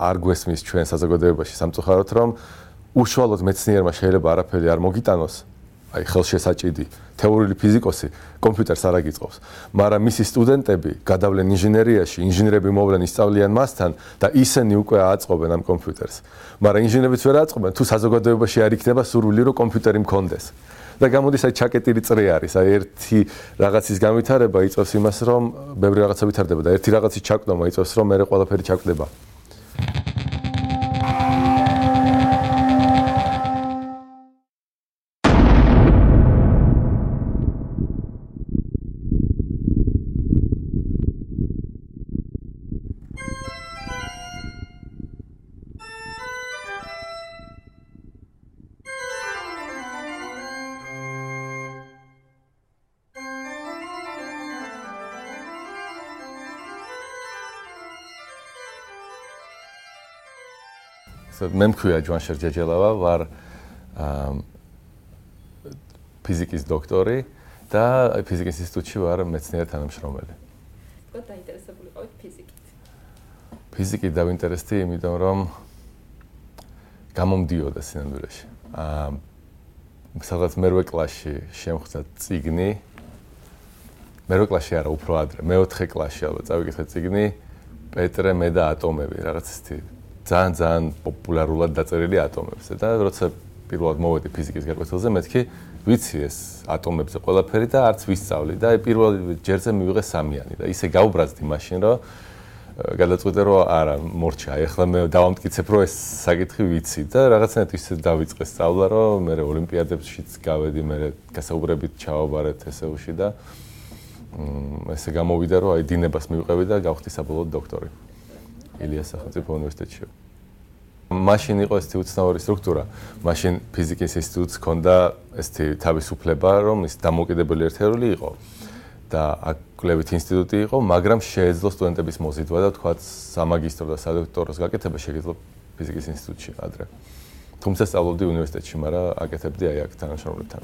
არ გვესმის ჩვენ საზოგადოებაში სამწუხაროდ რომ უშუალოდ მეცნიერმა შეიძლება არაფერი არ მოგიტანოს აი ხელშესაჭიდი თეორიული ფიზიკოსი კომპიუტერს არ აგიწყობს მაგრამ მისი სტუდენტები გადავლენ ინჟინერიაში ინჟინერები მოვლენ ისწავლიან მასთან და ისინი უკვე აწყობენ ამ კომპიუტერს მაგრამ ინჟინერებიც ვერ აწყობენ თუ საზოგადოებაში არ იქნება სურვილი რომ კომპიუტერი მქონდეს და გამოდის აი ჩაკეტილი წრე არის აი ერთი რაღაცის განვითარება იწევს იმას რომ ბევრი რაღაცა ვითარდება და ერთი რაღაცის ჩაკვდომა იწევს რომ მეორე ყველაფერი ჩაკვდება მე მქვია ჯვანშერ ჯეჯელავა ვარ ფიზიკის დოქტორი და ფიზიკის ინსტიტუტში ვარ მეცნიერ თანამშრომელი. Კოთ დაინტერესებული ყავით ფიზიკით? ფიზიკით დავინტერესდი, იმიტომ რომ გამომდიოდა სინამდვილეში. სადღაც მერვე კლასში შემხვდა წიგნი. მერვე კლასში არა, უფრო ადრე, მეოთხე კლასში ალბათ წავიკითხე წიგნი პეტრე მე და ატომები, რაღაც ისეთი ძალიან პოპულარულად დაწერილი ატომებზე და როცა პირველად მოვედი ფიზიკის გაკვეთილზე მეთქი ვიცი ეს ატომებზე ყველაფერი და არც ვისწავლი და პირველ ჯერზე მივიღე სამიანი და ისე გაუბრაზდი მაშინ რომ გადაწყვიტე რომ არა მორჩა ეხლა მე დავამტკიცებ რომ ეს საკითხი ვიცი და რაღაცნაირად ისე დავიწყე სწავლა რომ მე ოლიმპიადებშიც გავედი მე გასაუბრებით ჩავაბარეთ ესეუში და ესე გამოვიდა რომ აი დინებას მივყევი და გავხდი საბოლოოდ დოქტორი ილიას სახელმწიფო უნივერსიტეტში. მაშინ იყო ესეთი უცნაური სტრუქტურა. მაშინ ფიზიკის ინსტიტუტს ჰქონდა ესეთი თავისუფლება, რომ ის დამოუკიდებელი ერთეული იყო. და აქ კვლევით ინსტიტუტი იყო, მაგრამ შეეძლო სტუდენტების მოზიდვა და თქვა სამაგისტრო და სადოქტოროს გაკეთება შეიძლება ფიზიკის ინსტიტუტში ადრე. თუმცა სწავლობდი უნივერსიტეტში, მაგრამ აკეთებდი აი აქ თანამშრომლებთან.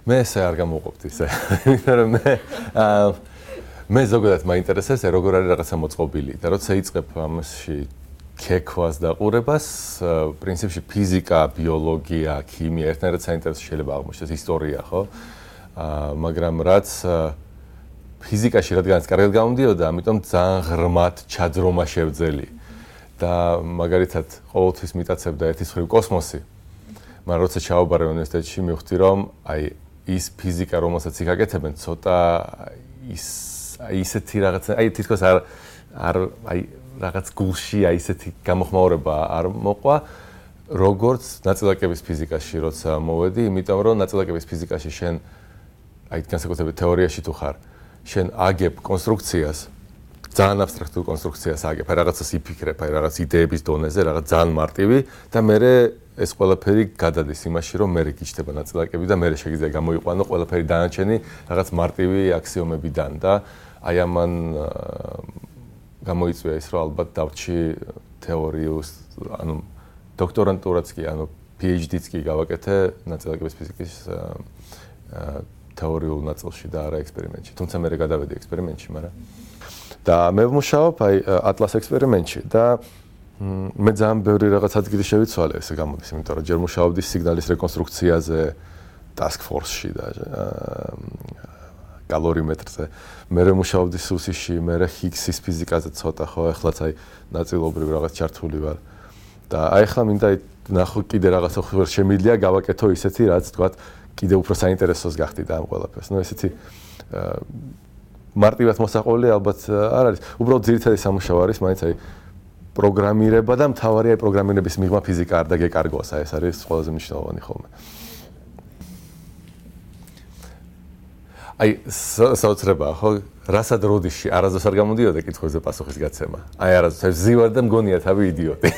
მე ესე არ გამოვყოფდი ისე. იმიტომ რომ მე ზოგადად მაინტერესებს როგორ არის რაღაცა მოწყობილი და როცა იწყებ ამაში ქექვას და ყურებას, პრინციპში ფიზიკა, ბიოლოგია, ქიმია ერთნაირად საინტერესო შეიძლება აღმოჩნდეს ისტორია, ხო? მაგრამ რაც ფიზიკაში რადგანაც კარგად გამომდიოდა, ამიტომ ძალიან ღრმად ჩაძრომა შევძელი და მაგალითად ყოველთვის მიტაცებდა ერთის მხრივ კოსმოსი. მაგრამ როცა ჩავაბარე უნივერსიტეტში, მივხვდი რომ აი ის ფიზიკა, რომელსაც იქ აკეთებენ, ცოტა ისეთი რაღაცა, აი თითქოს არ აი რაღაც გულში აი ისეთი გამოხმაურება არ მოყვა, როგორც ნაწილაკების ფიზიკაში, როცა მოვედი, იმიტომ რომ ნაწილაკების ფიზიკაში შენ აი განსაკუთრებით თეორიაში თუ ხარ, შენ აგებ კონსტრუქციას, ძალიან აბსტრაქტულ კონსტრუქციას აგებ, აი რაღაცას იფიქრებ, აი რაღაც იდეების დონეზე, რაღაც ძალიან მარტივი და მერე ეს ყველაფერი გადადის იმაში, რომ მერე გიჩნდება ნაწილაკები და მერე შეგიძლია გამოიყვანო ყველაფერი დანარჩენი რაღაც მარტივი აქსიომებიდან და აი ამან გამოიწვია ის, რომ ალბათ დავრჩი თეორიულს, ანუ დოქტორანტურაც კი, ანუ PhD-ც კი გავაკეთე ნაწილაკების ფიზიკის თეორიულ ნაწილში და არა ექსპერიმენტში. თუმცა მე გადავედი ექსპერიმენტში, მაგრამ და მე ვმუშაობ აი ატლას ექსპერიმენტში და მე ძალიან ბევრი რაღაც ადგილი შევიცვალე ესე გამოდის, იმიტომ რომ ჯერ მუშაობდი სიგნალის რეკონსტრუქციაზე task force-ში და კალორიმეტრზე. მე მუშაობდი სუსიში, მე ჰიგსის ფიზიკაზე ცოტა ხო, ახლაც აი ნაწილობრივ რაღაც ჩართული ვარ. და აი ახლა მინდა ნახო კიდე რაღაცა ხوار შემიძლია გავაკეთო ისეთი, რაც თქვა კიდე უფრო საინტერესოს გახდი და ამ ყველაფერს. ნუ ესეთი მარტივად მოსაყოლი ალბათ არ არის. უბრალოდ ძირითადი სამუშაო არის, მაინც აი პროგრამირება და მთავარია პროგრამირების მიღმა ფიზიკა არ დაგეკარგოს, აი ეს არის ყველაზე მნიშვნელოვანი ხოლმე. აი საოცრებაა ხო? რასად როდიში არასდროს არ გამოდიოდა კითხვებზე პასუხის გაცემა. აი არასდროს ზივარ და მგონია თავი იდიოტი.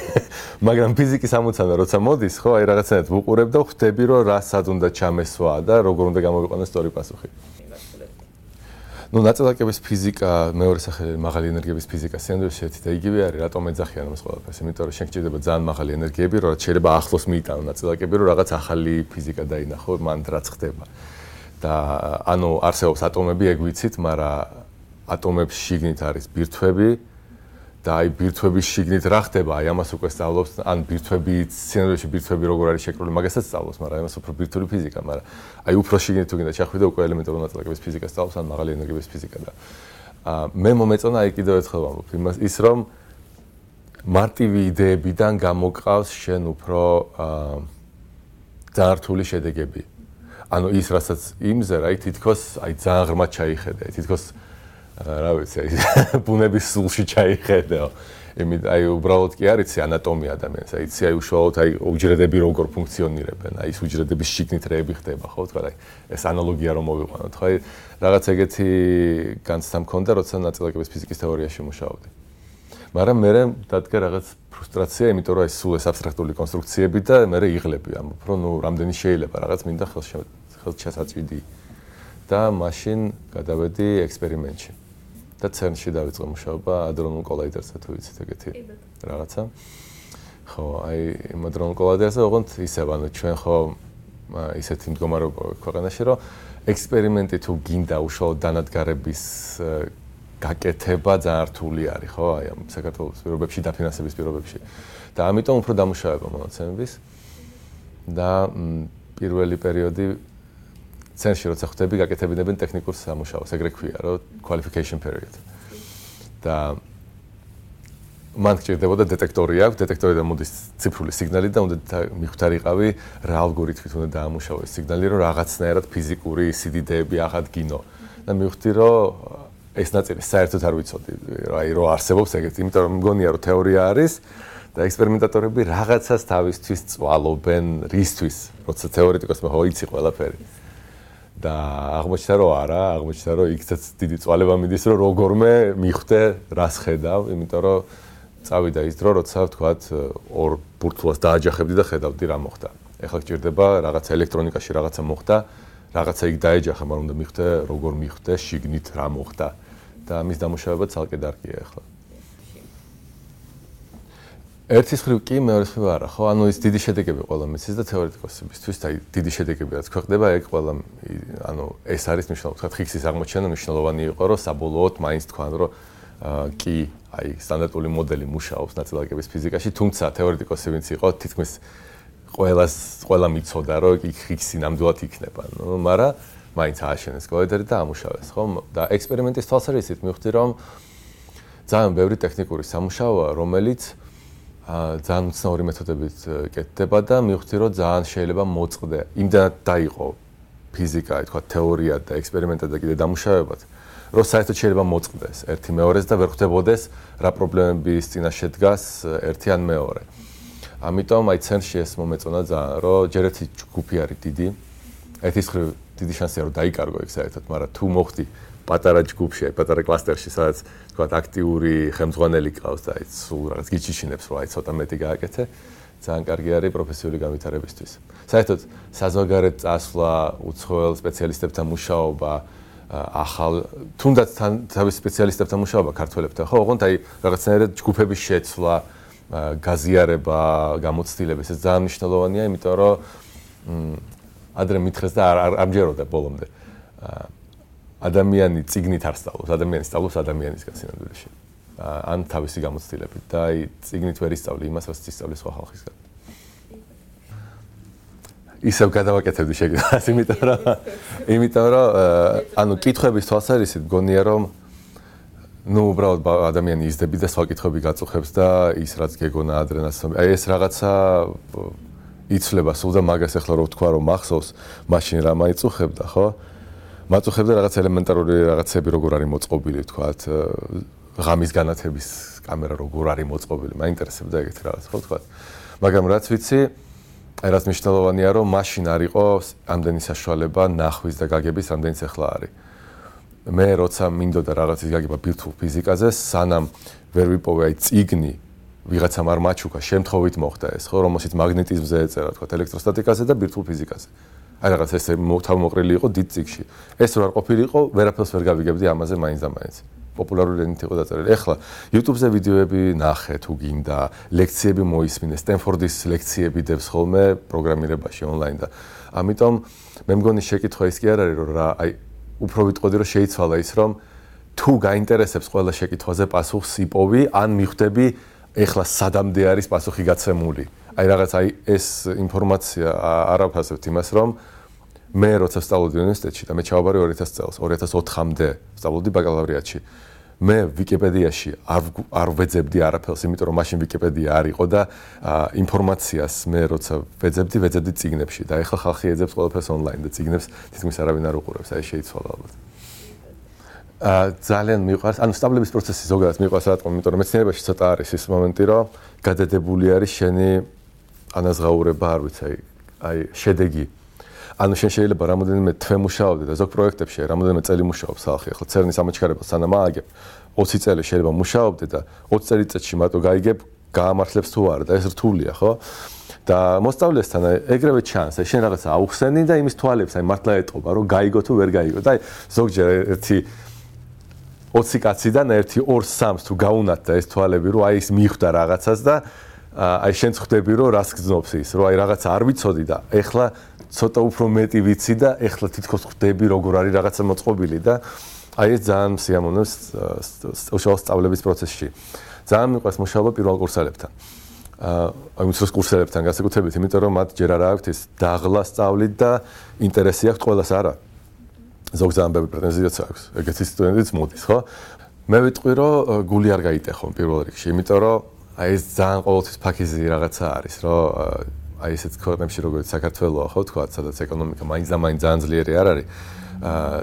მაგრამ ფიზიკის ამოცანა როცა მოდის, ხო, აი რაღაცნაირად ვუყურებ და ხვდები, რომ რასად უნდა ჩამესვა და როგორ უნდა გამოვიყვანოს სწორი პასუხი. ნუ ნაწილაკების ფიზიკა, მეორე სახელი მაღალი ენერგიების ფიზიკა, სინამდვილეში ერთი და იგივე არის, რატომ ეძახიან ამას ყველაფერს? იმიტომ რომ შენ გჭირდება ძალიან მაღალი ენერგიები, რომ შეიძლება ახლოს მიიტანო ნაწილაკები, რომ რაღაც ახალი ფიზიკა დაინახო, მან რაც ხდება. და ანუ არსებობს ატომები, ეგ ვიცით, მაგრამ ატომებში შიგნით არის ბირთვები, და აი ბირთვების შიგნით რა ხდება, აი ამას უკვე სწავლობს, ან ბირთვები, სცენარებში ბირთვები როგორ არის შეკრული, მაგასაც სწავლობს, მაგრამ ამას უფრო ბირთვული ფიზიკა, მაგრამ აი უფრო შიგნით თუ გინდა ჩახვიდე, უკვე ელემენტარული ნაწილაკების ფიზიკა სწავლობს, ან მაღალი ენერგიების ფიზიკა და მე მომეწონა აი კიდევ ერთხელ ვამბობ ის რომ მარტივი იდეებიდან გამოყავს შენ უფრო ძალიან რთული შედეგები. ანუ ის რასაც იმზე რა თითქოს აი ძალიან ღრმად ჩაიხედე, თითქოს რა ვიცი, აი ბუნების სულში ჩაიხედეო. აი უბრალოდ კი არ იცი ანატომია ადამიანს, აი იცი აი უშუალოდ აი უჯრედები როგორ ფუნქციონირებენ, აი ეს უჯრედების შიგნით რეები ხდება, ხო, თქვა, აი ეს ანალოგია რომ მოვიყვანოთ, ხო, აი რაღაც ეგეთი განცდა მქონდა, როცა ნაწილაკების ფიზიკის თეორიაში მუშაობდი. მაგრამ მე დადგა რაღაც ფრუსტრაცია, იმიტომ რომ ეს სულ ეს აბსტრაქტული კონსტრუქციები და მე იღლები, ამბობ, რომ ნუ რამდენი შეიძლება რაღაც მინდა ხელშესაწვიდი და მაშინ გადავედი ექსპერიმენტში. და CERN-ში დავიწყე მუშაობა ადრონულ კოლაიდერზე, თუ იცით ეგეთი რაღაცა. ხო, აი იმ ადრონულ კოლაიდერზე ოღონდ ისევ, ანუ ჩვენ ხო ისეთი მდგომარეობა ქვეყანაში, რომ ექსპერიმენტი თუ გინდა უშუალოდ დანადგარების გაკეთება ძალიან რთული არის, ხო? აი ამ საქართველოს პირობებში, დაფინანსების პირობებში. და ამიტომ უფრო დამუშავება მონაცემების და პირველი პერიოდი CERN-ში როცა ხვდები, გაკეთებინებენ ტექნიკურ სამუშაოს, ეგრე ქვია, რომ qualification period. და მან გჭირდებოდა დეტექტორი აქვს, დეტექტორიდან მოდის ციფრული სიგნალი და უნდა მიხვდარიყავი რა ალგორითმით უნდა დაამუშავო ეს სიგნალი, რომ რაღაცნაირად ფიზიკური სიდიდეები აღადგინო. და მივხვდი, რომ ეს ნაწილი საერთოდ არ ვიცოდი, აი რო არსებობს ეგეთი, იმიტომ რომ მგონია რომ თეორია არის და ექსპერიმენტატორები რაღაცას თავისთვის წვალობენ, რისთვის, როცა თეორეტიკოსმა ხო იცი ყველაფერი. და აღმოჩნდა რომ არა, აღმოჩნდა რომ იქაც დიდი წვალება მიდის, რომ როგორმე მიხვდე რას ხედავ, იმიტომ რომ წავიდა ის დრო, როცა ვთქვათ, ორ ბურთულას დააჯახებდი და ხედავდი რა მოხდა. ეხლა გჭირდება რაღაცა ელექტრონიკაში რაღაცა მოხდა, რაღაცა იქ დაეჯახა, მაგრამ უნდა მიხვდე, როგორ მიხვდე, შიგნით რა მოხდა და ამის დამუშავება ცალკე დარგია ეხლა. ერთის მხრივ კი, მეორის მხრივ არა, ხო? ანუ ის დიდი შედეგები ყველა მისის და თეორეტიკოსებისთვის და დიდი შედეგები რაც ქვეყნდება, ეგ ყველა ანუ ეს არის მნიშვნელოვანი. თქვა ხიქსის აღმოჩენა მნიშვნელოვანი იყო, რომ საბოლოოდ მაინც თქვან, რომ კი, აი სტანდარტული მოდელი მუშაობს ნაწილაკების ფიზიკაში, თუმცა თეორეტიკოსი ვინც იყო, თითქმის ყველა მიცოდა, რომ იქ ხიქსი ნამდვილად იქნება. ნუ, მაგრამ მაინც ააშენეს კოლაიდერი და ამუშავეს, ხო? და ექსპერიმენტის თვალსაზრისით მივხვდი, რომ ძალიან ბევრი ტექნიკური სამუშაოა, რომელიც ძალიან უცნაური მეთოდებით კეთდება და მივხვდი, რომ ძალიან შეიძლება მოწყდე. იმდანაც დაიყო ფიზიკა, თქვა თეორია და ექსპერიმენტა და კიდე დამუშავებად, რომ საერთოდ შეიძლება მოწყდეს ერთი მეორეს და ვერ ხვდებოდეს რა პრობლემების წინაშე დგას ერთი ან მეორე. ამიტომ აი CERN-ში ეს მომეწონა ძალიან, რომ ჯერ ერთი ჯგუფი არის დიდი. ერთის მხრივ დიდი შანსია რომ დაიკარგო ეგ საერთოდ, მაგრამ თუ მოხდი პატარა ჯგუფში, აი პატარა კლასტერში, სადაც თქვა აქტიური ხელმძღვანელი ყავს და აი სულ რაღაც გიჩიშინებს, რომ აი ცოტა მეტი გააკეთე, ძალიან კარგი არის პროფესიული განვითარებისთვის. საერთოდ საზოგადოებრივ წასვლა, უცხოელ სპეციალისტებთან მუშაობა, ახალ თუნდაც თავის სპეციალისტებთან მუშაობა ქართველებთან, ხო, ოღონდ აი რაღაცნაირად ჯგუფების შეცვლა, გაზიარება, გამოცდილება, ეს ძალიან მნიშვნელოვანია, იმიტომ რომ ადრე მითხრეს და არ ამჯეროდა ბოლომდე. ადამიანი წიგნით არ სწავლობს, ადამიანი სწავლობს ადამიანისგან სინამდვილეში. ან თავისი გამოცდილებით და აი წიგნით ვერ ისწავლი იმას, რაც ისწავლის სხვა ხალხისგან. ისევ გადავაკეთებდი შეგიძლიათ, იმიტომ რომ ანუ კითხვების თვალსაზრისით მგონია რომ ნუ უბრალოდ ადამიანი იზრდები და სხვა კითხვები გაწუხებს და ის რაც გეგონა ადრენაც აი ეს რაღაცა იცვლება სულ და მაგას ახლა რო ვთქვა რომ მახსოვს მაშინ რა მაიწუხებდა ხო მაწუხებდა რაღაც ელემენტარული რაღაცები როგორ არის მოწყობილი ვთქვათ ღამის განათების კამერა როგორ არის მოწყობილი მაინტერესებდა ეგეთი რაღაც ხო ვთქვათ მაგრამ რაც ვიცი აი რაც მნიშვნელოვანია რომ მაშინ არ იყო ამდენი საშუალება ნახვის და გაგების ამდენიც ახლა არის მე როცა მინდოდა რაღაცის გაგება ბირთვულ ფიზიკაზე სანამ ვერ ვიპოვე აი წიგნი ვიღაცამ არ მაჩუქა შემთხვევით მოხდა ეს ხო რომელშიც მაგნეტიზმზე ეწერა თქვა ელექტროსტატიკაზე და ბირთვულ ფიზიკაზე აი რაღაც ეს თავმოყრილი იყო დიდ წიგში ეს რო არ ყოფილიყო ვერაფერს ვერ გავიგებდი ამაზე მაინც და მაინც პოპულარული ენით იყო დაწერილი ეხლა YouTube-ზე ვიდეოები ნახე თუ გინდა ლექციები მოისმინე სტენფორდის ლექციები დევს ხოლმე პროგრამირებაში ონლაინ და ამიტომ მე მგონი შეკითხვა ის კი არ არის რომ რა აი უფრო ვიტყოდი რომ შეიცვალა ის რომ თუ გაინტერესებს ყველა შეკითხვაზე პასუხს იპოვი, ან მიხვდები ეხლა სადამდე არის პასუხი გაცემული. აი რაღაც ეს ინფორმაცია არ ავფასებთ იმას, რომ მე როცა ვსწავლობდი უნივერსიტეტში და მე ჩავაბარე 2000 წელს, 2004-მდე ვსწავლობდი ბაკალავრიატში. მე ვიკიპედიაში არ ვეძებდი არაფერს, იმიტომ რომ მაშინ ვიკიპედია არ იყო და ინფორმაციას მე როცა ვეძებდი წიგნებში და ეხლა ხალხი ეძებს ყველაფერს ონლაინ და წიგნებს თითქმის არავინ არ უყურებს, აი შეიცვალა ალბათ. ძალიან მიყვარს, ანუ სწავლების პროცესი ზოგადად მიყვარს რატომ, იმიტომ რომ მეცნიერებაში ცოტა არის ის მომენტი, რომ გადადებული არის შენი ანაზღაურება, არ ვიცი, აი შედეგი. ანუ შენ შეიძლება რამოდენიმე თვე მუშაობდე და ზოგ პროექტებში რამოდენიმე წელი მუშაობს ხალხი. ახლა CERN-ის ამოჩქარებას სანამ ააგებ 20 წელი შეიძლება მუშაობდე და 20 წელიწადში მარტო გაიგებ გაამართლებს თუ არა და ეს რთულია, ხო? და მოსწავლესთან ეგრევე ჩანს, აი შენ რაღაცა აუხსენი და იმის თვალებს აი მართლა ეტყობა, რომ გაიგო თუ ვერ გაიგო. და აი ზოგჯერ ერთი 20 კაციდან ერთი 2-3-ს თუ გაუნათდა ეს თვალები, რომ აი ის მიხვდა რაღაცას და აი შენ ხვდები, რომ რას გძნობს ის, რომ აი რაღაცა არ ვიცოდი და ეხლა ცოტა უფრო მეტი ვიცი და ეხლა თითქოს ხვდები, როგორ არის რაღაცა მოწყობილი და აი ეს ძალიან სიამოვნებს უშუალო სწავლების პროცესში. ძალიან მიყვარს მუშაობა პირველ კურსელებთან. აი უმცროს კურსელებთან განსაკუთრებით, იმიტომ რომ მათ ჯერ არ აქვთ ის დაღლა სწავლით და ინტერესი აქვთ ყველას არა. ზოგ ძალიან ბევრი პრეტენზიაც აქვს. ეგეთი სტუდენტიც მოდის, ხო? მე ვიტყვი, რომ გული არ გაიტეხონ პირველ რიგში, იმიტომ რომ აი ეს ძალიან ყოველთვის ფაქიზი რაღაცა არის, რომ აი ესეთ ქვეყნებში როგორც საქართველოა, ხო, თქვა, სადაც ეკონომიკა მაინც ძალიან ძლიერი არ არის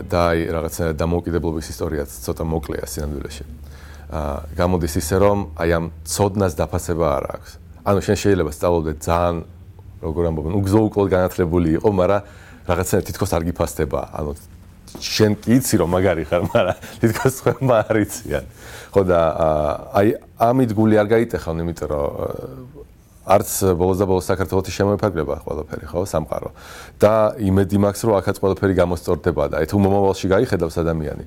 და აი რაღაცა დამოუკიდებლობის ისტორიაც ცოტა მოკლეა სინამდვილეში. გამოდის ისე, რომ აი ამ ცოდნას დაფასება არ აქვს. ანუ შენ შეიძლება სწავლობდე ძალიან, როგორ ამბობენ, უგზო-უკლოდ განათლებული იყო, მაგრამ რაღაცა თითქოს არ გიფასდება. ანუ შენ კი იცი რომ მაგარი ხარ, მაგრამ თითქოს ხმა არ იციან. ხო და აი ამით გული არ გაიტეხონ, იმიტომ რომ არც ბოლოს და ბოლოს საქართველოში შემოიფარგლება ყველაფერი, ხო, სამყარო. და იმედი მაქვს, რომ აქაც ყველაფერი გამოსწორდება და თუ მომავალში გაიხედავს ადამიანი,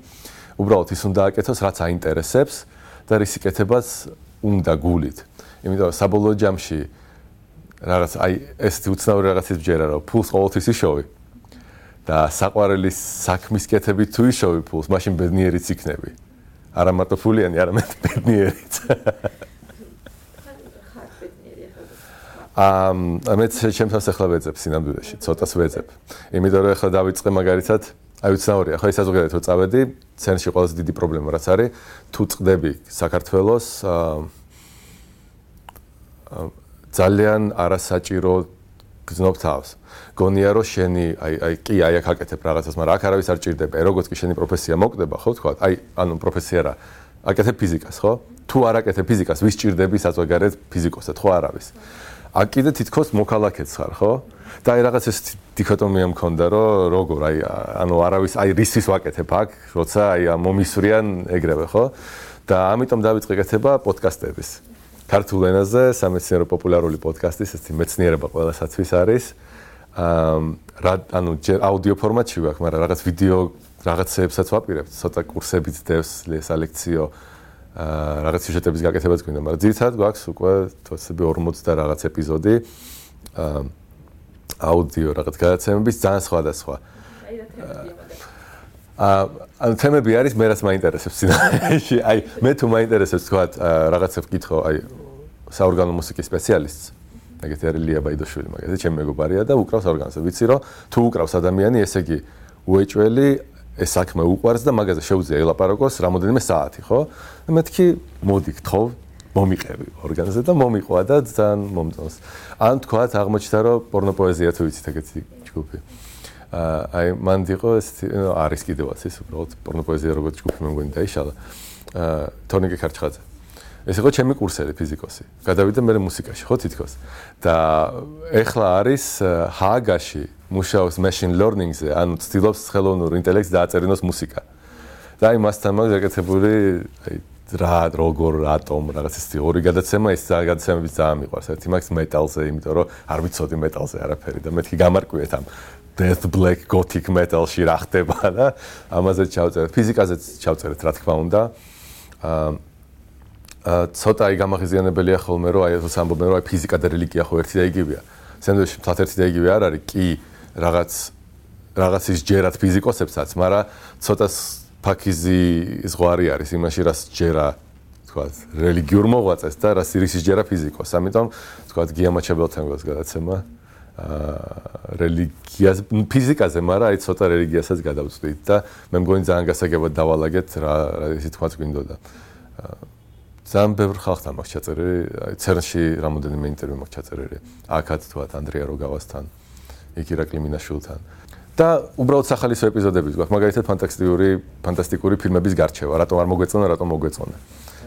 უბრალოდ ის უნდა აკეთოს, რაც აინტერესებს და რისიკეთებას უნდა გულით. იმიტომ რომ საბოლოო ჯამში რაღაც აი ესეთი უცნაური რაღაცის ბჯერა, რომ ფულს ყოველთვის იშოვი და საყვარელის საქმის კეთებით თუ იშოვი ფულს, მაშინ ბედნიერიც იქნები. არა მარტო ფულიანი, არამედ ბედნიერიც. მეც ჩემთან ახლა ვეძებ სინამდვილეში, ცოტას ვეძებ. იმიტომ რომ ახლა დავიწყე მაგალითად, აი უცნაურია, ხო, ეს საზოგადოებრივ თუ წავედი, CERN-ში ყველაზე დიდი პრობლემა რაც არის, თუ წდები საქართველოს ძალიან არასაჭირო გძნობ თავს. გონია რომ შენი კი აქ აკეთებ რაღაცას, მაგრამ აქ არავის არ ჭირდება. როგორც კი შენი პროფესია მოკვდება, ხო, თქვა, ანუ პროფესია რა, აკეთებ ფიზიკას, ხო? თუ არ აკეთებ ფიზიკას, ვის ჭირდები საზოგადოებრივ ფიზიკოსად, ხო, არავის. აქ კიდე თითქოს მოქალაქეც ხარ, ხო? და აი რაღაც ეს დიქოტომია მქონდა, რომ როგორ ანუ არავის რისთვის ვაკეთებ აქ, როცა მომისვრიან ეგრევე, ხო? და ამიტომ დავიწყე კეთება პოდკასტების. ქართულ ენაზე სამეცნიერო პოპულარული პოდკასტის, ესეთი მეცნიერება ყველასათვის არის. ანუ ჯერ აუდიო ფორმატში ვაქვს, მაგრამ რაღაც ვიდეო რაღაცებსაც ვაპირებთ, ცოტა კურსებიც დევს ლექციო. რაღაც სიუჟეტების გაკეთებაც გვინდა, მაგრამ ძირითადად გვაქვს უკვე თვეები 40 და რაღაც ეპიზოდი აუდიო რაღაც გადაცემების ძალიან სხვადასხვა. ანუ თემები არის მე რაც მაინტერესებს სინამდვილეში. აი მე თუ მაინტერესებს თქვა რაღაცა ვკითხო, აი საორგანო მუსიკის სპეციალისტს. ეგეთი არის ლია ბაიდოშვილი, მაგაზე ჩემი მეგობარია და უკრავს ორგანოზე. ვიცი რომ თუ უკრავს ადამიანი, ესე იგი უეჭველი ეს საქმე უყვარს და მაგაზე შეუძლია ელაპარაკოს რამოდენიმე საათი, ხო? და მეთქი მოდი გთხოვ, მომიყევი ორგანოზე და მომიყვა და ძალიან მომწონს. ან თქვა აღმოჩნდა რომ პორნოპოეზია თუ ვიცით ეგეთი ჯგუფი. აი მანდ იყო ესეთი არის კიდევაც ის უბრალოდ პორნოპოეზია როგორც ჯგუფი მე მგონი დაიშალა. თორნიკე ქარჩხაძე. ეს იყო ჩემი კურსელი ფიზიკოსი. გადავიდა მე მუსიკაში, ხო თითქოს. და ეხლა არის ჰააგაში მუშაობს machine learning-ზე, ანუ ცდილობს ხელოვნურ ინტელექტს დააწერინოს მუსიკა. და აი მასთან მაგ გაკეთებული აი რა როგორ რატომ რაღაც ის ორი გადაცემა, ეს გადაცემები ძალიან მიყვარს. ერთი მაგს მეტალზე, იმიტომ რომ არ ვიცოდი მეტალზე არაფერი და მეთქი გამარკვიეთ ამ death black gothic metal-ში რა ხდება და ამაზე ჩავწერეთ. ფიზიკაზეც ჩავწერეთ, რა თქმა უნდა. ცოტა აი გამაღიზიანებელია ხოლმე რომ აი ეს ამბობენ რომ აი ფიზიკა და რელიგია ხო ერთი და იგივეა. სენდვიჩი თათ ერთი და იგივე არ არის, კი რაღაცის ჯერად ფიზიკოსებსაც, მაგრამ ცოტა ფაქიზი ზღვარი არის იმაში, რაც ჯერა თქვათ, რელიგიურ მოღვაწეს და რაც ირისის ჯერა ფიზიკოს. ამიტომ თქვათ, გიამაჩაბელთან გვაქვს გადაცემა რელიგიას, ფიზიკაზე, მაგრამ აი ცოტა რელიგიასაც გადავწყვით და მე მგონი ძალიან გასაგებად დავალაგეთ რა ისე თქვათ გვინდოდა. ძალიან ბევრ ხალხთან მაქვს ჩაწერილი, აი ცერნში რამოდენიმე ინტერვიუ მაქვს ჩაწერილი. აქაც თქვათ ანდრია როგავასთან, იქ ირაკლი მინაშვილთან. და უბრალოდ სახალისო ეპიზოდები გვაქვს, მაგალითად ფანტასტიკური ფილმების გარჩევა, რატომ არ მოგვეწონა, რატომ მოგვეწონა.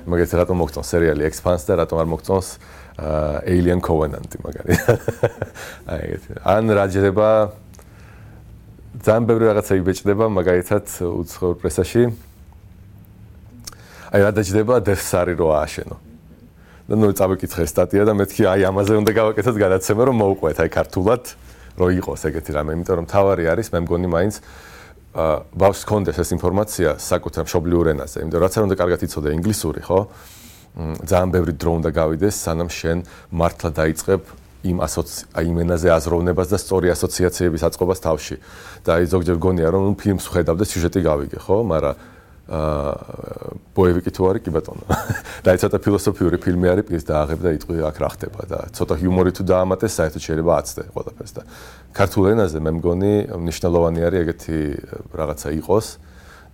მაგალითად რატომ მოგწონს სერიალი Expanse და რატომ არ მოგწონს Alien Covenant მაგალითად. აი ეგეთი. ან რა ჯდება ძალიან ბევრი რაღაცა იბეჭდება მაგალითად უცხოურ პრესაში. აი რა დაჯდება Death Star-ი რო ააშენო. და ნუ წავიკითხე სტატია და მეთქი აი ამაზე უნდა გავაკეთოთ გადაცემა რომ მოუყვეთ აი ქართულად რო იყოს ეგეთი რამე, იმიტომ რომ თავარი არის მე მგონი მაინც ბავშვს კონდეს ეს ინფორმაცია საკუთარ მშობლიურ ენაზე, იმიტომ რომ რაც არ უნდა კარგად იცოდე ინგლისური, ხო? ძალიან ბევრი დრო უნდა გავიდეს, სანამ შენ მართლა დაიწყებ იმ ენაზე აზროვნებას და სწორი ასოციაციების აწყობას თავში. და აი ზოგჯერ გონია რომ ფილმს ხედავ და სიუჟეტი გავიგე, ხო? მაგრამ ბოევიკი თუ არის კი ბატონო. და აი ცოტა ფილოსოფიური ფილმი არის, პირს დააღებ და იტყვი აქ რა ხდება და ცოტა ჰიუმორი თუ დაამატეს, საერთოდ შეიძლება აცდე ყველაფერს და ქართულ ენაზე მე მგონი მნიშვნელოვანი არის ეგეთი რაღაცა იყოს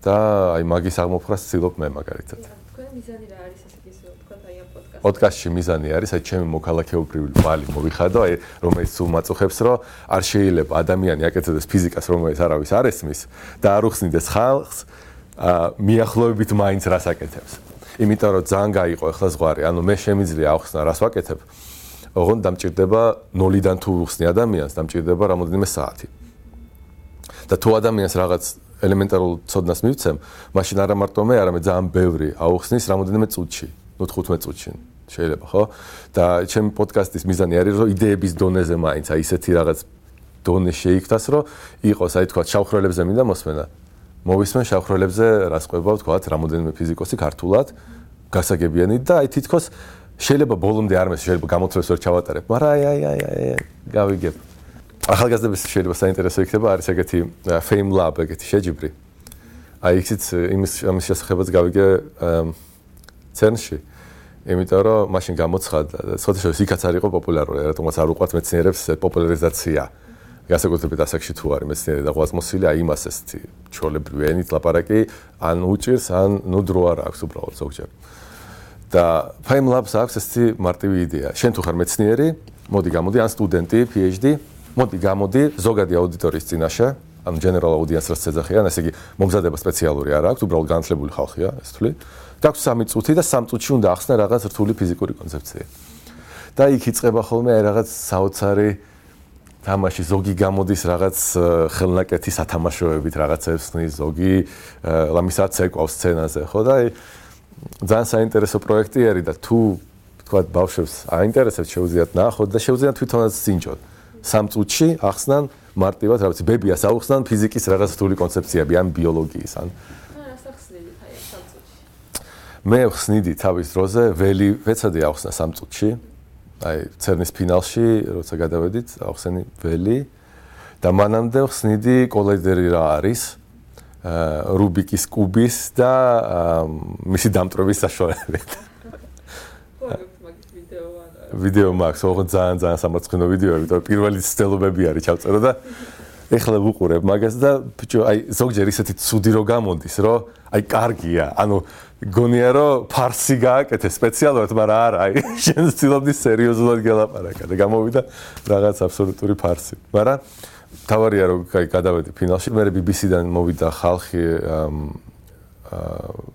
და აი მაგის აღმოფხვრას ვცდილობ მე მაგალითად. თქვენი მიზანი რა არის ესე ის თქვენ აი ამ პოდკასტში? პოდკასტში მიზანი არის აი ჩემი მოქალაქეობრივი ვალი მოვიხადო, აი რომელიც სულ მაწუხებს, რომ არ შეიძლება ადამიანი აკეთებდეს ფიზიკას, რომელიც არავის არ ესმის და არ უხსნიდეს ხალხს მიახლოებით მაინც რას აკეთებს. იმიტომ რომ ძალიან გაიყო ახლა ზღვარი, ანუ მე შემიძლია ავხსნა რას ვაკეთებ, ოღონდ დამჭირდება 0-დან თუ უხსნი ადამიანს, დამჭირდება რამოდენიმე საათი. და თუ ადამიანს რაღაც ელემენტარულ ცოდნას მივცემ, მაშინ არა მარტო მე, არამედ ძალიან ბევრი აუხსნის რამოდენიმე წუთში, 15 წუთში შეიძლება, ხო? და ჩემი პოდკასტის მიზანი არის, რომ იდეების დონეზე მაინც აი ისეთი რაღაც დონე შეიქმნას, რომ იყოს აი თქვა შავხრელებზე მინდა მოსმენა. მოვისმენ შავხრელებზე რას ყვება თქვათ რამოდენიმე ფიზიკოსი ქართულად გასაგებიანი და აი თითქოს შეიძლება ბოლომდე არ მეს შეიძლება გამოთვლებს ვერ ჩავატარებ, მაგრამ აი გავიგებ. ახალგაზრდების შეიძლება საინტერესო იქნება არის ეგეთი Fame Lab ეგეთი შეჯიბრი. აი იქით იმის შესახებაც გავიგე CERN-ში. იმიტომ რომ მაშინ გამოცხადდა და ცოტა შეიძლება იქაც არ იყო პოპულარული, რატომაც არ უყვართ მეცნიერებს პოპულარიზაცია. გასაკუთრებით ასაკში თუ არის მეცნიერი და ღვაწმოსილი, აი იმას ესეთი ჩვეულებრივი ენით ლაპარაკი ან უჭირს, ან ნუ დრო არ აქვს უბრალოდ ზოგჯერ. და Fame Labs აქვს ესეთი მარტივი იდეა. შენ თუ ხარ მეცნიერი, მოდი გამოდი ან სტუდენტი, PhD, მოდი გამოდი ზოგადი აუდიტორიის წინაშე, ანუ general audience-ს ეძახიან, ესე იგი მომზადება სპეციალური არ აქვს, უბრალოდ განათლებული ხალხია, ეს თვლი. გაქვს 3 წუთი და 3 წუთში უნდა ახსნე რაღაც რთული ფიზიკური კონცეფცია. და იქ იწყება ხოლმე აი რაღაც საოცარი თამაში, ზოგი გამოდის რაღაც ხელნაკეთი სათამაშოებით რაღაცებს ხნის, ზოგი ლამისაც ეკავს სცენაზე, ხო და აი ძალიან საინტერესო პროექტი არის და თუ თქვა ბავშვებს აინტერესებს შეუძლიათ ნახოთ და შეუძლიათ თვითონაც წინჯოთ. 3 წუთში ახსნან მარტივად რაღაც ბებიას აუხსნან ფიზიკის რაღაც რთული კონცეფციები ან ბიოლოგიის ან რას ახსნით აი 3 წუთში? მე ხსნიდი თავის დროზე ველი ვეცადი ახსნა 3 წუთში. აი CERN-ის ფინალში როცა გადავედით, ახსენი ველი და მანამდე ხსნიდი კოლაიდერი რა არის, რუბიკის კუბის და მისი დამტრობის საშუალებით. ვიდეო მაქვს, ოღონდ ძალიან სამარცხინო ვიდეოები, იმიტომ პირველი ცდელობები არის ჩავწერო და ეხლა ვუყურებ მაგას და ბიჭო, აი ზოგჯერ ისეთი ცუდი რო გამოდის, რომ აი კარგია, ანუ გონია რომ ფარსი გააკეთე სპეციალურად, მაგრამ არა, აი შენ ვცდილობდი სერიოზულად გელაპარაკა და გამოვიდა რაღაც აბსოლუტური ფარსი. მაგრამ თავარია რომ აი გადავედი ფინალში, მე BBC-დან მოვიდა ხალხი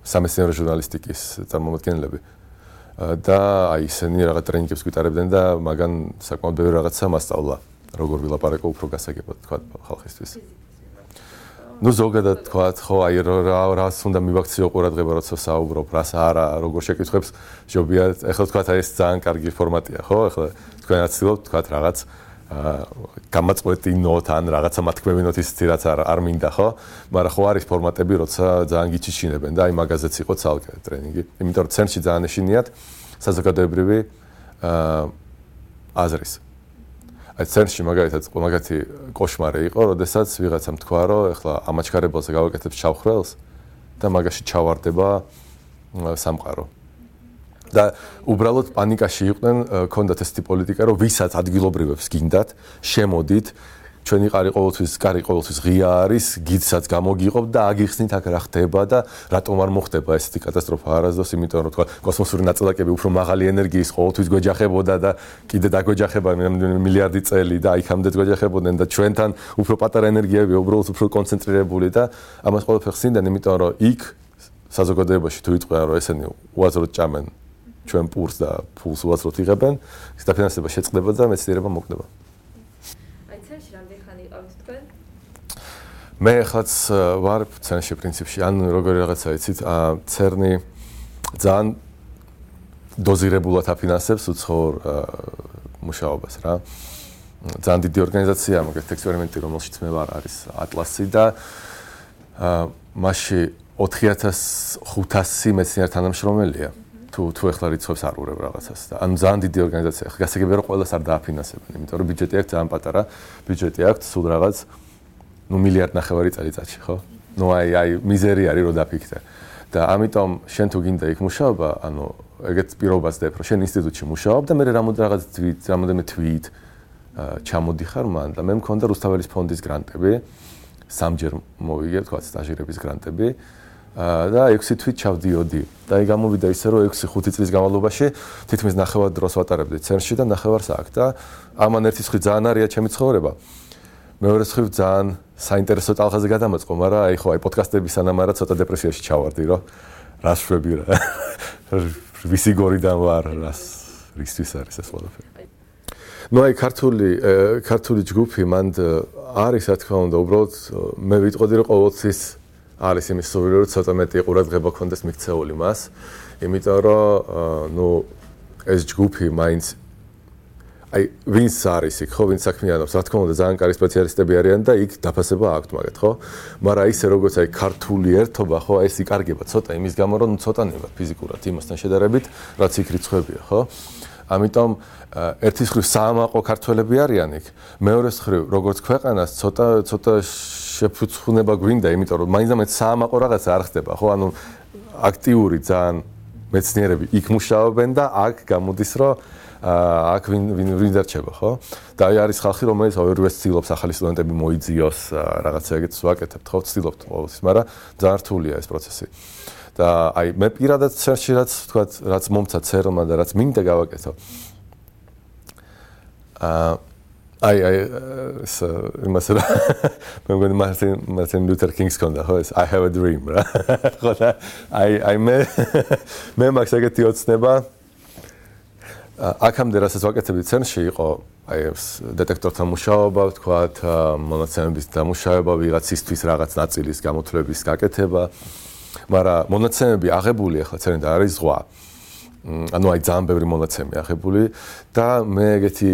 სამეცნიერო ჟურნალისტიკის წარმომადგენლები. და აი ისინი რაღაც ტრენინგებს გვიტარებდნენ და მაგან საკმაოდ ბევრი რაღაცა მასწავლა, როგორ ვილაპარაკო უფრო გასაგებად თქვა ხალხისთვის. ნუ ზოგადად თქვა, ხო, აი რას უნდა მივაქციო ყურადღება, როცა საუბრობ, რას არა, როგორ შეკითხვებს ჯობია. ეხლა თქვა აი ეს ძალიან კარგი ფორმატია, ხო? ეხლა თქვენაც ცდილობთ თქვა რაღაც გამაწყვეტინოთ ან რაღაცა მათქმევინოთ ისეთი რაც არ მინდა, ხო? მაგრამ ხო არის ფორმატები, როცა ძალიან გიჩიჩინებენ და აი მაგაზეც იყო ცალკე ტრენინგი. იმიტომ რომ CERN-ში ძალიან ეშინიათ საზოგადოებრივი აზრის. აი CERN-ში მაგალითად მაგათი კოშმარი იყო, როდესაც ვიღაცამ თქვა, რომ ეხლა ამაჩქარებელზე გავაკეთებ შავხრელს და მაგაში ჩავარდება სამყარო. და უბრალოდ პანიკაში იყვნენ, ქონდათ ესეთი პოლიტიკა, რომ ვისაც ადგილობრივებს გინდათ, შემოდით, ჩვენი კარი ყოველთვის ღია არის, გიდსაც გამოგიყოფ და აგიხსნით აქ რა ხდება და რატომ არ მოხდება ესეთი კატასტროფა არასდროს, იმიტომ რომ თქვა კოსმოსური ნაწილაკები უფრო მაღალი ენერგიის ყოველთვის გვეჯახებოდა და კიდე დაგვეჯახება მილიარდი წელი და იქამდე გვეჯახებოდნენ და ჩვენთან უფრო პატარა ენერგიები უბრალოდ უფრო კონცენტრირებული და ამას ყველაფერს ხსნიდნენ, იმიტომ რომ იქ საზოგადოებაში თუ იტყვიან რომ ესენი უაზროდ ჭამენ ჩვენ პურს და ფულს უაზროდ იღებენ, ის დაფინანსება შეწყდება და მეცნიერება მოკვდება. მე ახლაც ვარ CERN-ში პრინციპში, ან როგორი რაღაცა იცით, CERN-ი ძალიან დოზირებულად აფინანსებს უცხოურ მუშაობას რა. ძალიან დიდი ორგანიზაცია, მაგათ ექსპერიმენტი, რომელშიც მე ვარ, არის ატლასი და მასში 4500 მეცნიერ თანამშრომელია. თუ ეხლა რიცხვებს არ ურევ რაღაცას და ანუ ძალიან დიდი ორგანიზაცია. გასაგებია რომ ყველას არ დააფინანსებენ, იმიტომ რომ ბიუჯეტი აქვს ძალიან პატარა, ბიუჯეტი აქვს სულ რაღაც მილიარდ ნახევარი წელიწადში, ხო? აი მიზერი არის რომ დაფიქრდე. და ამიტომ შენ თუ გინდა იქ მუშაობა, ანუ ეგეთ პირობას დებ, რომ შენ ინსტიტუტში მუშაობ და მე რამოდენიმე თვით ჩამოდიხარ მან და მე მქონდა რუსთაველის ფონდის გრანტები, სამჯერ მოვიგე, თქვა სტაჟირების გრანტები. და 6 თვით ჩავდიოდი და აი გამოვიდა ისე რომ 6-5 წლის განმავლობაში თითქმის ნახევარ დროს ვატარებდი CERN-ში და ნახევარს აქ და ამან ერთი ხრი ძალიან არია ჩემი ცხოვრება. მეორე ხრი ძალიან საინტერესო ტალღაზე გადამაწყო, მაგრამ აი ხო აი პოდკასტების სანამ არა ცოტა დეპრესიაში ჩავარდი, რომ რას შვები რა. ვისი გორიდან ვარ, რისთვის არის ეს ყველაფერი. ნუ აი ქართული ჯგუფი მანდ არის რა თქმა უნდა, უბრალოდ მე ვიტყოდი რომ ყოველთვის არის იმის სურვილი რომ ცოტა მეტი ყურადღება ქონდეს მიქცეული მას, იმიტომ რომ ნუ ეს ჯგუფი მაინც აი ვინც არის იქ ხო, ვინც საქმიანობს, რა თქმა უნდა ძალიან კარგი სპეციალისტები არიან და იქ დაფასება აქვთ მაგათ ხო, მაგრამ ისე როგორც აი ქართული ერთობა ხო, ეს იკარგება ცოტა იმის გამო რომ ცოტა ნება ფიზიკურად იმასთან შედარებით, რაც იქ რიცხვებია ხო. ამიტომ ერთის მხრივ საამაყო ქართველები არიან იქ, მეორეს მხრივ როგორც ქვეყანას ცოტა შეფუცხუნება გვინდა, იმიტომ რომ მაინც საამაყო რაღაცა არ ხდება, ხო? ანუ აქტიური ძალიან მეცნიერები იქ მუშაობენ და აქ გამოდის, რომ აქ ვინ დარჩება, ხო? და აი არის ხალხი, რომელიც ორივე ცდილობს ახალი სტუდენტები მოიძიოს, რაღაცა ეგეთს ვაკეთებთ, ხო? ცდილობთ ყოველთვის, მაგრამ ძალიან რთულია ეს პროცესი. და აი მე პირადად CERN-ში რაც მომცა CERN-მა და რაც მინდა გავაკეთო. აი იმას რა მე მგონი მარტინ ლუთერ კინგს კონდა ხო ეს I have a dream რა ხო და აი მე მაქვს ეგეთი ოცნება აქამდე რასაც ვაკეთებდი CERN-ში იყო აი ეს დეტექტორთან მუშაობა ვთქვათ მონაცემების დამუშავება ვიღაცისთვის რაღაც ნაწილის გამოთვლების გაკეთება მაგრამ მონაცემები აღებული ახლა CERN-ი და არის ზღვა ანუ აი ძალიან ბევრი მონაცემი აღებული და მე ეგეთი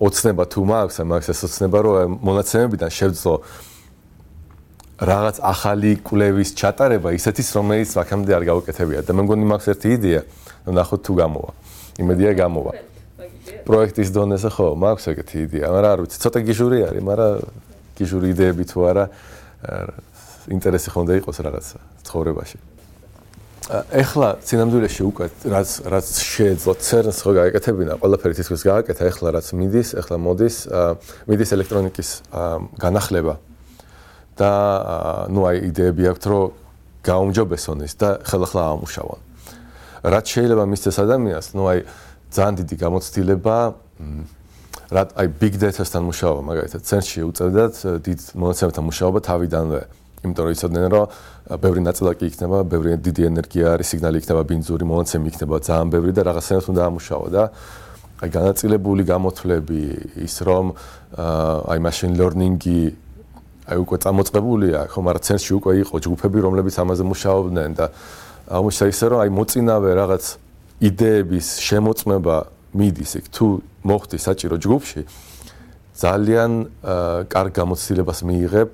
ოცნება თუ მაქვს ეს ოცნება რომ მონაცემებიდან შევძლო რაღაც ახალი კვლევის ჩატარება ისეთის რომელიც აქამდე არ გავუკეთებია და მე მგონი მაქვს ერთი იდეა ნახოთ თუ გამოვა იმედია გამოვა პროექტის დონეზე ხო მაქვს ეგეთი იდეა მაგრამ არ ვიცი ცოტა გიჟური არის მაგრამ გიჟური იდეები თუ არა ინტერესი ხონდა იყოს რაღაც ცხოვრებაში ეხლა სინამდვილეში უკვე რაც შეეძლო CERN-ს ხო გააკეთებინა ყველაფერი თითქოს გააკეთა ეხლა რაც მიდის ელექტრონიკის განახლება და ნუ აი იდეები აქვს რომ გაუმჯობესონ ის და ხელახლა ამუშავონ რაც შეიძლება მისცეს ადამიანს ნუ აი ძალიან დიდი გამოცდილება აი big data-სთან მუშაობა მაგალითად CERN-ში უწევდათ დიდ მონაცემებთან მუშაობა თავიდანვე იმიტომ რომ იცოდნენ რომ ბევრი ნაწილაკი იქნება, ბევრი დიდი ენერგია არის, სიგნალი იქნება ბინძური, მონაცემი იქნება ძალიან ბევრი და რაღაცნაირად უნდა ამუშაო და აი განაწილებული გამოთვლები ის რომ აი machine learning-ი აი უკვე წამოწყებულია, ხო, მაგრამ CERN-ში უკვე იყო ჯგუფები, რომლებიც ამაზე მუშაობდნენ და აღმოჩნდა ისე რომ აი მოწინავე რაღაც იდეების შემოწმება მიდის იქ თუ მოხდი საჭირო ჯგუფში ძალიან კარგ გამოცდილებას მიიღებ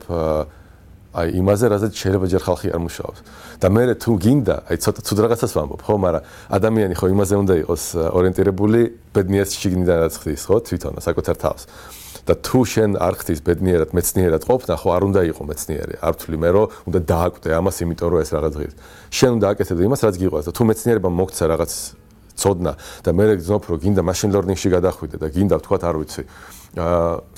აი იმაზე, რაზეც შეიძლება ჯერ ხალხი არ მუშაობს. და მე თუ გინდა, აი ცოტა ცუდ რაღაცას ვამბობ, ხო, მაგრამ ადამიანი ხო იმაზე უნდა იყოს ორიენტირებული, ბედნიერად შიგნიდან რაც ხდის, ხო, თვითონ საკუთარ თავს. და თუ შენ არ ხდის ბედნიერად, მეცნიერად ყოფნა, ხო, არ უნდა იყო მეცნიერი. არ ვთვლი მე, რომ უნდა დააკვდე ამას, იმიტომ რომ ეს რაღაც ღირს. შენ უნდა აკეთებდე იმას, რაც გიყვარს და თუ მეცნიერებამ მოგცა რაღაც ცოდნა და მე გძნობ, რომ გინდა machine learning-ში გადახვიდე და გინდა ვთქვათ, არ ვიცი,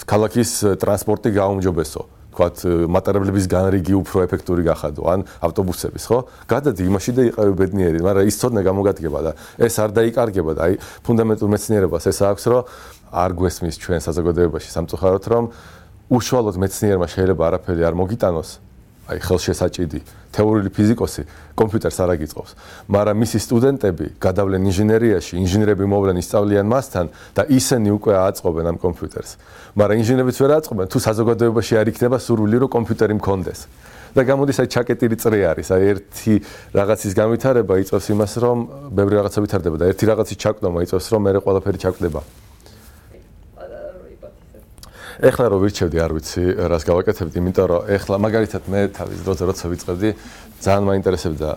ქალაქის ტრანსპორტი გაუმჯობესო. ვთქვათ, მატარებლების განრიგი უფრო ეფექტური გახადო, ან ავტობუსების, ხო? გადადი იმაში და იყავი ბედნიერი, მაგრამ ის ცოდნა გამოგადგება და ეს არ დაიკარგება და აი ფუნდამენტურ მეცნიერებას ეს აქვს, რომ არ გვესმის ჩვენ საზოგადოებაში სამწუხაროდ, რომ უშუალოდ მეცნიერმა შეიძლება არაფერი არ მოგიტანოს, აი ხელშესაჭიდი თეორიული ფიზიკოსი კომპიუტერს არ აგიწყობს, მაგრამ მისი სტუდენტები გადავლენ ინჟინერიაში, ინჟინერები მოვლენ ისწავლიან მასთან და ისინი უკვე აწყობენ ამ კომპიუტერს. მაგრამ ინჟინერებიც ვერ აწყობენ, თუ საზოგადოებაში არ იქნება სურვილი, რომ კომპიუტერი მქონდეს. და გამოდის აი ჩაკეტილი წრე არის, აი ერთი რაღაცის განვითარება იწვევს იმას, რომ ბევრი რაღაცა ვითარდება და ერთი რაღაცის ჩაკვდომა იწვევს, რომ მეორე ყველაფერი ჩაკვდება. ეხლა რო ვირჩევდი, არ ვიცი, რას გავაკეთებდი, იმიტომ რომ ეხლა მაგალითად მე თავის დროზე როცა ვიწყებდი, ძალიან მაინტერესებდა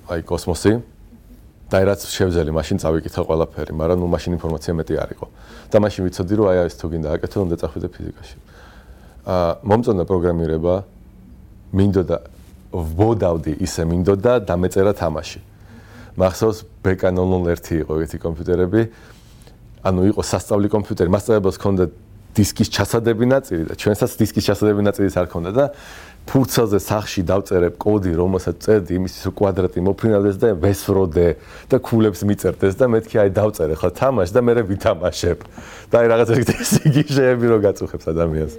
აი კოსმოსი და რაც შევძელი, მაშინ წავიკითხე ყველაფერი, მაგრამ ნუ მაშინ ინფორმაცია მეტი არ იყო. და მაშინ ვიცოდი, რომ აი ეს თუ გინდა აკეთო, უნდა წახვიდე ფიზიკაში. მომწონდა პროგრამირება, მინდოდა ვბოდავდი ისე მინდოდა დამეწერა თამაში. მახსოვს BK001 იყო ეგეთი კომპიუტერები, ანუ იყო სასწავლი კომპიუტერი, მასწავლებელს ჰქონდა დისკის ჩასადები ნაწილი და ჩვენსაც დისკის ჩასადები ნაწილიც არ ქონდა და ფურცელზე სახში დავწერებ კოდი, რომელსაც წერდი იმის კვადრატი მოფრინავდეს და ვესროდე და ქულებს მიწერდეს და მეთქი აი დავწერე ხო თამაში და მე ვითამაშებ. და აი რაღაც იგი შეები რო გაწუხებს ადამიანს.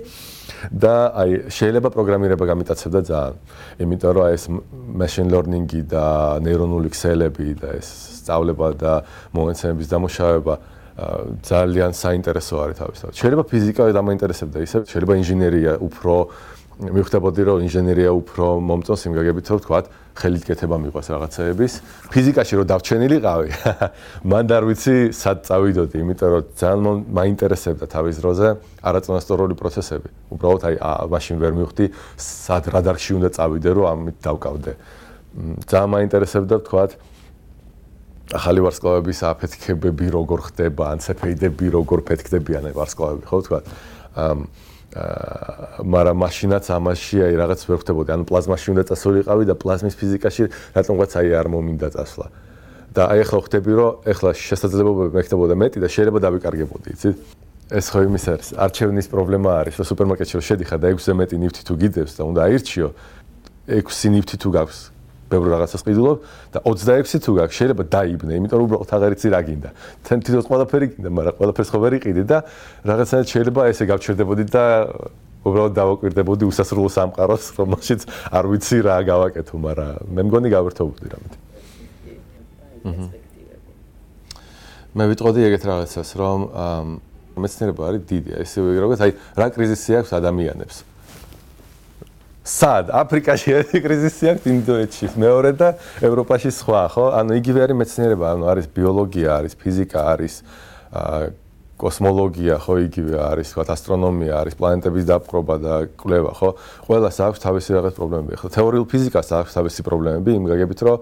და აი შეიძლება პროგრამირება გამიტაცებდა ძალიან. იმიტომ რომ აი ეს machine learning-ი და ნეირონული ქსელები და ეს სწავლება და მომენტების დამუშავება ძალიან საინტერესო არის თავისთავად. შეიძლება ფიზიკა დამაინტერესებდა ისე, შეიძლება ინჟინერია უფრო მივხვდებოდი, რომ ინჟინერია უფრო მომწონს იმ გაგებით, რომ ვთქვათ, ხელით კეთება მიყვარს რაღაცეების. ფიზიკაში რო დავჩენილიყავი, მან არ ვიცი, სად წავიდოდი, იმიტომ რომ ძალიან მაინტერესებდა თავის დროზე არაწონასწორული პროცესები. უბრალოდ აი მაშინ ვერ მივხვდი, სად რა დარგში უნდა წავიდე, რომ ამით დავკავდე. ძალიან მაინტერესებდა, ვთქვათ, ახალი ვარსკვლავების აფეთქებები როგორ ხდება, ან ცეფეიდები როგორ ფეთქდებიან ვარსკვლავები, ხო ვთქვათ. მაგრამ მაშინაც ამაში აი რაღაც ვერ ხდებოდი, ანუ პლაზმაში უნდა წასულიყავი და პლაზმის ფიზიკაში რატომღაც აი არ მომინდა წასვლა. და აი ახლა ხვდები, რომ ახლა შესაძლებლობები მექნებოდა მეტი და შეიძლება დავიკარგებოდი, იცით? ეს ხო იმის არის, არჩევნის პრობლემა არის, რომ სუპერმარკეტში რო შედიხარ და 6-ზე მეტი ნივთი თუ გიდევს და უნდა აირჩიო, 6 ნივთი თუ გაქვს ბევრ რაღაცას ყიდულობ და 26 თუ გაქვს შეიძლება დაიბნე, იმიტომ რომ უბრალოდ აღარ იცი რა გინდა. თვითონ ყველაფერი გინდა, მაგრამ ყველაფერს ხო ვერ იყიდი და რაღაცნაირად შეიძლება ესე გავჩერდებოდი და უბრალოდ დავაკვირდებოდი უსასრულო სამყაროს, რომელშიც არ ვიცი რა გავაკეთო, მაგრამ მე მგონი გავერთობოდი რამეთ. მე ვიტყოდი ეგეთ რაღაცას, რომ მეცნიერება არის დიდი, ესე როგორც აი რა კრიზისი აქვს ადამიანებს. სად? აფრიკაში ერთი კრიზისი აქვს, ინდოეთში მეორე და ევროპაში სხვა, ხო? ანუ იგივე არის მეცნიერება, ანუ არის ბიოლოგია, არის ფიზიკა, არის კოსმოლოგია, ხო, იგივე არის, თქვა, ასტრონომია, არის პლანეტების დაპყრობა და კვლევა, ხო? ყველას აქვს თავისი რაღაც პრობლემები. ხო, თეორიულ ფიზიკას აქვს თავისი პრობლემები, იმ გაგებით, რომ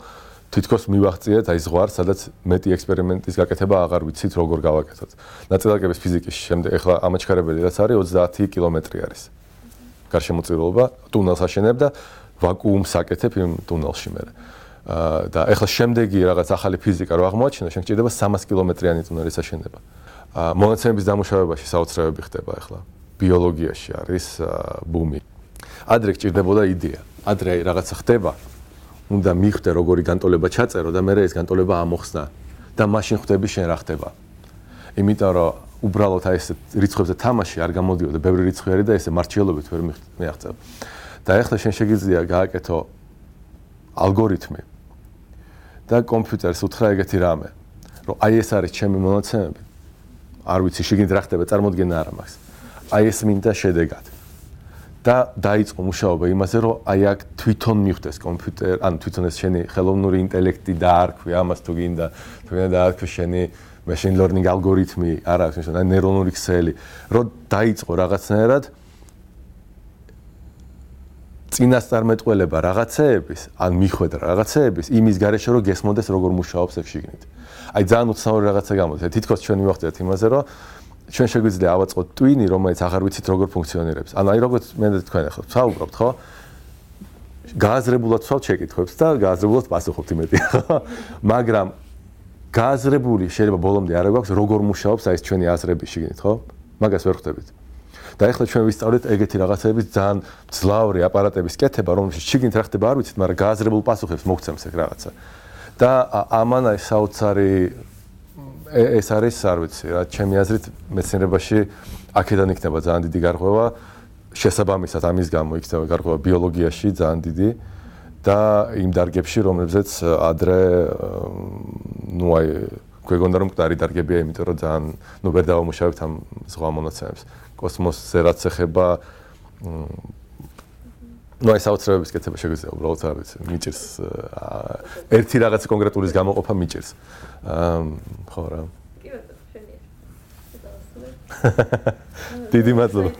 თითქოს მივახციეთ აი ზღვარს, სადაც მეტი ექსპერიმენტის გაკეთება აღარ ვიცით როგორ გავაკეთოთ. ნაწილაკების ფიზიკის შემდეგ ახლა ამაჩქარებელი რაც არის 30 კილომეტრი არის. გარშემოწირულობა, ტუნელს აშენებ და ვაკუუმს აკეთებ იმ ტუნელში მე. და ახლა შემდეგი რაღაც ახალი ფიზიკა რო აღმოაჩინო, შენ გჭირდება 300 კილომეტრიანი ტუნელის აშენება. მონაცემების დამუშავებაში საოცრებები ხდება ახლა. ბიოლოგიაში არის ბუმი. ადრე გჭირდებოდა იდეა. ადრე რაღაცა ხდება. უნდა მიხვდე როგორი განტოლება ჩაწერო და მე ეს განტოლება ამოხსნა და მაშინ ხვდები შენ რა ხდება. იმიტომ რომ უბრალოდ აი ეს რიცხვებზე თამაში არ გამოდიოდა, ბევრი რიცხვი არის და ესე მარჩიელობით ვერ მიაღწევ. და ახლა შენ შეგიძლია გააკეთო ალგორითმი და კომპიუტერს უთხრა ეგეთი რამე, რომ აი ეს არის ჩემი მონაცემები. არ ვიცი შეგინდა რა ხდება, წარმოდგენა არ მაქვს. აი ეს მინდა შედეგად. და დაიწყო მუშაობა იმაზე, რომ აი აქ თვითონ მიხვდეს კომპიუტერ, ანუ თვითონ ეს შენი ხელოვნური ინტელექტი დაარქვი ამას თუ გინდა, თუ გინდა დაარქვი შენი machine learning ალგორითმი, არა აქვს ნიშნული, ნეირონული ქსელი, რომ დაიწყო რაღაცნაირად წინასწარმეტყველება რაღაცეების, ან მიხვედრა რაღაცეების იმის გარეშე რომ გესმოდეს როგორ მუშაობს ეს შიგნით. აი ძალიან უცნაური რაღაცა გამოდის. თითქოს ჩვენ მივახდეთ იმაზე, რომ ჩვენ შეგვიძლია ავაწყოთ ტვინი, რომელიც აღარ ვიცით როგორ ფუნქციონირებს. ანუ აი როგორც მე და თქვენ ახლა ვსაუბრობთ, ხო? გააზრებულად ვსვავთ შეკითხვებს და გააზრებულად პასუხობთ იმედია, ხო? მაგრამ გააზრებული შეიძლება ბოლომდე არ გვაქვს როგორ მუშაობს აი ეს ჩვენი აზრები შიგნით, ხო? მაგას ვერ ხვდებით. და ახლა ჩვენ ვისწავლეთ ეგეთი რაღაცების ძალიან ძლავრი აპარატების კეთება, რომელშიც შიგნით რა ხდება არ ვიცით, მაგრამ გააზრებულ პასუხებს მოგცემს ეგ რაღაცა. და ამან აი საოცარი ეს არის, არ ვიცი, რა ჩემი აზრით მეცნიერებაში აქედან იქნება ძალიან დიდი გარღვევა, შესაბამისად ამის გამო იქნება გარღვევა ბიოლოგიაში ძალიან დიდი და იმ დარგებში, რომლებზეც ადრე ნუ აი გვეგონდა რომ მკვდარი დარგებია, იმიტომ რომ ძალიან ნუ ვერ დავამუშავებთ ამ ზღვა მონაცემებს. კოსმოსზე რაც ეხება ნუ აი საოცრებების კეთება შეგვიძლია უბრალოდ არ ვიცი, მიჭირს ერთი რაღაც კონკრეტულის გამოყოფა მიჭირს. ხო რა. კი ბატონო, შენია. დიდი მადლობა.